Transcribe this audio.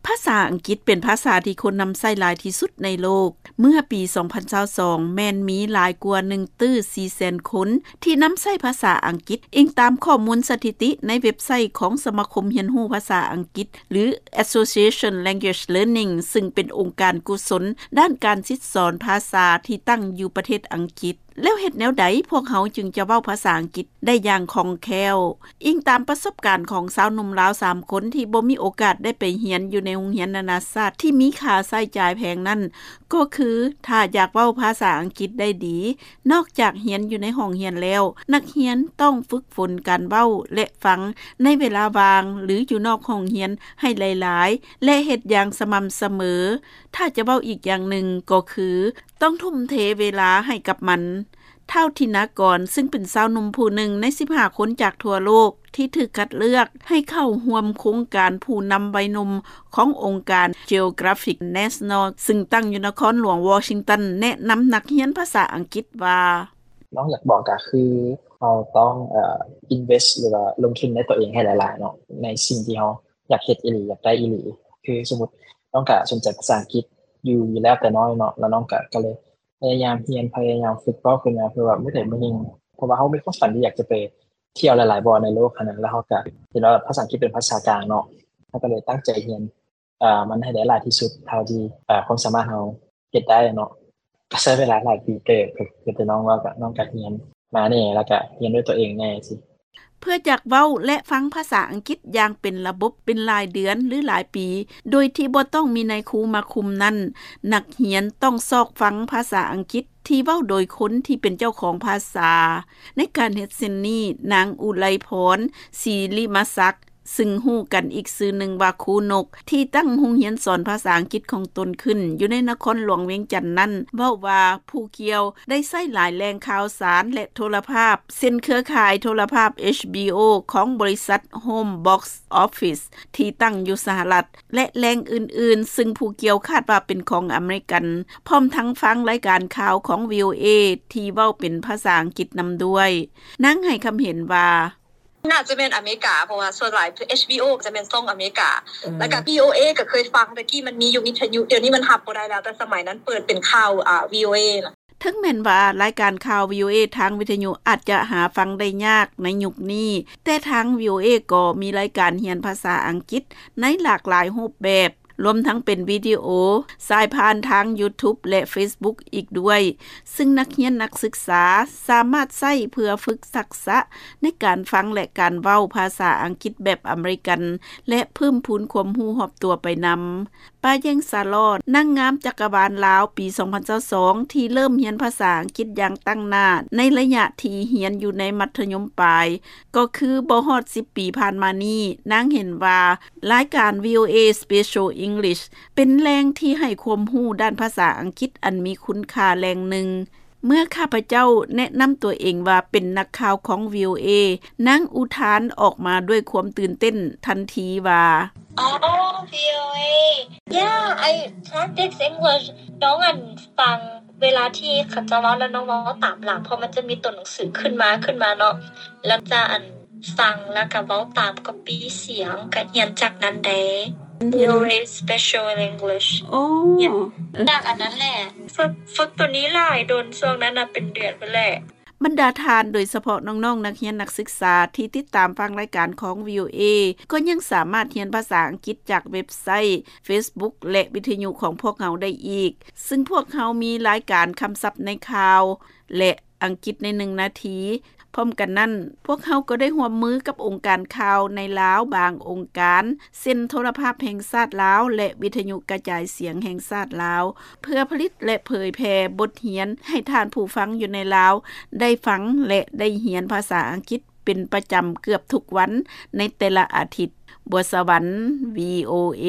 ພາສາອັງກິດເປັນພາສາທີ່ຄົນນຳໃຊ້ຫຼາຍທີ່ສຸດໃນໂລກ. ເມື່ອປີສອງພັນຊາວສອງ ແມ່ນມີຫຼາຍກວ່າໜຶ່ງຕື້ສີ່ແສນຄົນທີ່ນຳໃຊ້ພາສາອັງກິດ, ອີງຕາມຂໍ້ມູນສະຖິຕິໃນເວັບໄຊຂອງສະມາຄົມຮຽນຮູ້ພາສາອັງກິດ ຫຼື Association Language Learning ຊຶ່ງເປັນອົງການກຸສົນດ້ານການສິດສອນພາສາທີ່ຕັ້ງຢູ່ປະເທດອັງກິດ. ແລ້ວເຮັດແນວໃດພວກເຮົາຈຶ່ງຈະເວົ້າພາສາອັງກິດໄດ້ຢ່າງຄ່ອງແຄ້ວ? ອີງຕາມປະສົບການຂອງຊາວໜຸ່ມລາວສາມຄົນທີ່ບໍ່ມີໂອກາດໄດ້ໄປຮຽນຢູ່ໃນໂຮງຮຽນນານາຊາດທີ່ມີຄ່າໃຊ້ຈ່າຍແພງນັ້ນ, ກໍຄືຖ້າຢາກເວົ້າພາສາອັງກິດໄດ້ດີ, ນອກຈາກຮຽນຢູ່ໃນຫ້ອງຮຽນແລ້ວ, ນັກຮຽນຕ້ອງຝຶກຝົນການເວົ້າ ແລະ ຟັງໃນເວລາວ່າງ ຫຼື ຢູ່ນອກຫ້ອງຮຽນໃຫ້ຫຼາຍໆ ແລະ ເຮັດຢ່າງສະໝ່ຳສະເໝີ. ຖ້າຈະເວົ້າອີກຢ່າງໜຶ່ງກໍຄື ຕ້ອງທຸ່ມເທເວລາໃຫ້ກັບມັນ. ທ້າວ ທິນາກອນ ຊຶ່ງເປັນຊາວໜຸ່ມຜູ້ໜຶ່ງໃນສິບຫ້າຄົນຈາກທົ່ວໂລກທີ່ຖືກຄັດເລືອກໃຫ້ເຂົ້າຮ່ວມໂຄງການຜູ້ນຳໄວໜຸ່ມຂອງອົງການ Geographic National ຊຶ່ງຕັ້ງຢູ່ນະຄອນຫຼວງວໍຊິງຕັນ ແນະນຳນັກຮຽນພາສາອັງກິດວ່າ: ນ້ອງຢາກບອກກໍຄືເຮົາຕ້ອງ ເອີ invest ຫຼືວ່າລົງທຶນໃນຕົວເອງໃຫ້ຫຼາຍໆເນາະ ໃນສິ່ງທີ່ເຮົາຢາກເຮັດອີ່ຫຼີ ຢາກໄດ້ອີ່ຫຼີ. ຄືສົມມຸດນ້ອງກໍສົນໃຈພາສາອັງກິດຢູ່ ຢູ່ແລ້ວແຕ່ນ້ອຍເນາະ ແລ້ວນ້ອງກໍ ກໍເລີຍ ພະຍາຍາມຮຽນ ພະຍາຍາມຝຶກເວົ້າຂຶ້ນມາ ເພື່ອວ່າມື້ໃດມື້ໜຶ່ງ ເພາະວ່າເຮົາມີຄວາມຝັນທີ່ຢາກຈະໄປທ່ຽວຫຼາຍໆບ່ອນໃນໂລກຫັ້ນນະ ແລ້ວເຮົາກະເຫັນວ່າພາສາອັງກິດເປັນພາສາກາງເນາະ ເຮົາກະເລີຍຕັ້ງໃຈຮຽນ ເອີ ມັນໃຫ້ໄດ້ຫຼາຍທີ່ສຸດເທົ່າທີ່ ເອີ ຄວາມສາມາດເຮົາເຮັດໄດ້ເນາະ. ກະໃຊ້ເວລາຫຼາຍປີເຕີບ ຄື ຄືແຕ່ນ້ອງເວົ້າ ກະ ນ້ອງກະຮຽນມາແດ່ ແລ້ວກະຮຽນດ້ວຍຕົວເອງແດ່ຊີ້. ເພື່ອຢາກເວົ້າ ແລະ ຟັງພາສາອັງກິດຢ່າງເປັນລະບົບເປັນຫຼາຍເດືອນ ຫຼື ຫຼາຍປີ ໂດຍທີ່ບໍ່ຕ້ອງມີນາຍຄູມາຄຸມນັ້ນ, ນັກຮຽນຕ້ອງຊອກຟັງພາສາອັງກິດທີ່ເວົ້າໂດຍຄົນທີ່ເປັນເຈົ້າຂອງພາສາ. ໃນການເຮັດເຊັ່ນນີ້, ນາງ ອຸໄລພອນ ສີລິມະສັກ ຊຶ່ງຮູ້ກັນອີກຊື່ໜຶ່ງວ່າຄູນົກ ທີ່ຕັ້ງໂຮງຮຽນສອນພາສາອັງກິດຂອງຕົນຂຶ້ນຢູ່ໃນນະຄອນຫຼວງວຽງຈັນນັ້ນ ເວົ້າວ່າຜູ້ກ່ຽວໄດ້ໃຊ້ຫຼາຍແຫຼ່ງຂ່າວສານ ແລະ ໂທລະພາບ ເຊັ່ນ ເຄືອຂ່າຍໂທລະພາບ ເອຊບີໂອ ຂອງບໍລິສັດ Home Box Office ທີ່ຕັ້ງຢູ່ສະຫະລັດ ແລະ ແຫຼ່ງອື່ນໆ ຊຶ່ງຜູ້ກ່ຽວຄາດວ່າເປັນຂອງອາເມລິກັນ, ພ້ອມທັງຟັງລາຍການຂ່າວຂອງ ວີໂອເອ ທີ່ເວົ້າເປັນພາສາອັງກິດນຳດ້ວຍ. ນາງໃຫ້ຄຳເຫັນວ່າ: ໜ້າຈະແມ່ນອາເມລິກາ ເພາະວ່າສ່ວນຫຼາຍ ເອຊບີໂອ ຈະແມ່ນຊ່ອງອາເມລິກາ ອືມ ແລ້ວກະ ວີໂອເອ ກະເຄີຍຟັງ ແຕ່ກີ້ມັນມີຢູ່ວິທະຍຸ ດຽວນີ້ມັນຮັບບໍ່ໄດ້ແລ້ວ ແຕ່ສະໄໝນັ້ນເປີດເປັນຂ່າວ ອາ ວີໂອເອ ນະ. ເຖິງແມ່ນວ່າລາຍການຂ່າວ ວີໂອເອ ທາງວິທະຍຸອາດຈະຫາຟັງໄດ້ຍາກໃນຍຸກນີ້, ແຕ່ທາງ ວີໂອເອ ກໍມີລາຍການຮຽນພາສາອັງກິດໃນຫຼາກຫຼາຍຮູບແບບ, ລວມທັງເປັນວິດີໂອ, ສາຍຜ່ານທາງ YouTube ແລະ Facebook ອີກດ້ວຍ, ຊຶ່ງນັກຮຽນນັກສຶກສາສາມາດໃຊ້ເພື່ອຝຶກທັກສະໃນການຟັງ ແລະ ການເວົ້າພາສາອັງກິດແບບອາເມລິກັນ ແລະ ເພີ່ມພູນຄວາມຮູ້ຮອບຕົວໄປນຳ. ປາແຢງ ສາຫຼໍ້ ນາງງາມຈັກກະວານລາວປີສອງພັນຊາວສອງ ທີ່ເລີ່ມຮຽນພາສາອັງກິດຢ່າງຕັ້ງໜ້າໃນໄລຍະທີ່ຮຽນຢູ່ໃນມັດທະຍົມປາຍ ກໍຄືບໍ່ຮອດສິບປີຜ່ານມານີ້, ນາງເຫັນວ່າລາຍການ ວີໂອເອ Special English ເປັນແຫຼ່ງທີ່ໃຫ້ຄວາມຮູ້ດ້ານພາສາອັງກິດອັນມີຄຸນຄ່າແຫຼ່ງໜຶ່ງ. ເມື່ອຂ້າພະເຈົ້າແນະນຳຕົວເອງວ່າເປັນນັກຂ່າວຂອງ ວີໂອເອ, ນາງອຸທານອອກມາດ້ວຍຄວາມຕື່ນເຕັ້ນທັນທີວ່າ: ອໍ ວີໂອເອ Yeah, I practice English. ນ້ອງ ອັນ ຟັງເວລາທີ່ເຂົາເຈົ້າເວົ້າ ແລ້ວນ້ອງເວົ້າຕາມຫຼັງ ເພາະມັນຈະມີຕົວໜັງສືຂຶ້ນມາ ຂຶ້ນມາເນາະ ແລ້ວຈະ ອັນ ຟັງ ແລ້ວກະເວົ້າຕາມ copy ສຽງ ກະຮຽນຈາກນັ້ນເດ້. ອໍ ວີໂອເອ Special English. ອໍ ຮຽນຈາກອັນນັ້ນແຫຼະ. ຝຶກ ຝຶກໂຕນີ້ຫຼາຍດົນ ຊ່ວງນັ້ນນະ ເປັນເດືອນພຸ້ນແຫຼະ. ບັນດາທ່ານ, ໂດຍສະເພາະນ້ອງໆນັກຮຽນນັກສຶກສາທີ່ຕິດຕາມຟັງລາຍການຂອງ ວີໂອເອ ກໍຍັງສາມາດຮຽນພາສາອັງກິດຈາກເວັບໄຊ, Facebook ແລະ ວິທະຍຸຂອງພວກເຮົາໄດ້ອີກ, ຊຶ່ງພວກເຮົາມີລາຍການຄຳສັບໃນຂ່າວ ແລະ ອັງກິດໃນໜຶ່ງນາທີ. ພ້ອມກັນນັ້ນ, ພວກເຮົາກໍໄດ້ຮ່ວມມືກັບອົງການຂ່າວໃນລາວບາງອົງການ, ເຊັ່ນ ໂທລະພາບແຫ່ງຊາດລາວ ແລະ ວິທະຍຸກະຈາຍສຽງແຫ່ງຊາດລາວ, ເພື່ອຜະລິດ ແລະ ເຜີຍແຜ່ບົດຮຽນໃຫ້ທ່ານຜູ້ຟັງຢູ່ໃນລາວໄດ້ຟັງ ແລະ ໄດ້ຮຽນພາສາອັງກິດເປັນປະຈຳເກືອບທຸກວັນໃນແຕ່ລະອາທິດ. ບົວສະຫວັນ ວີໂອເອ.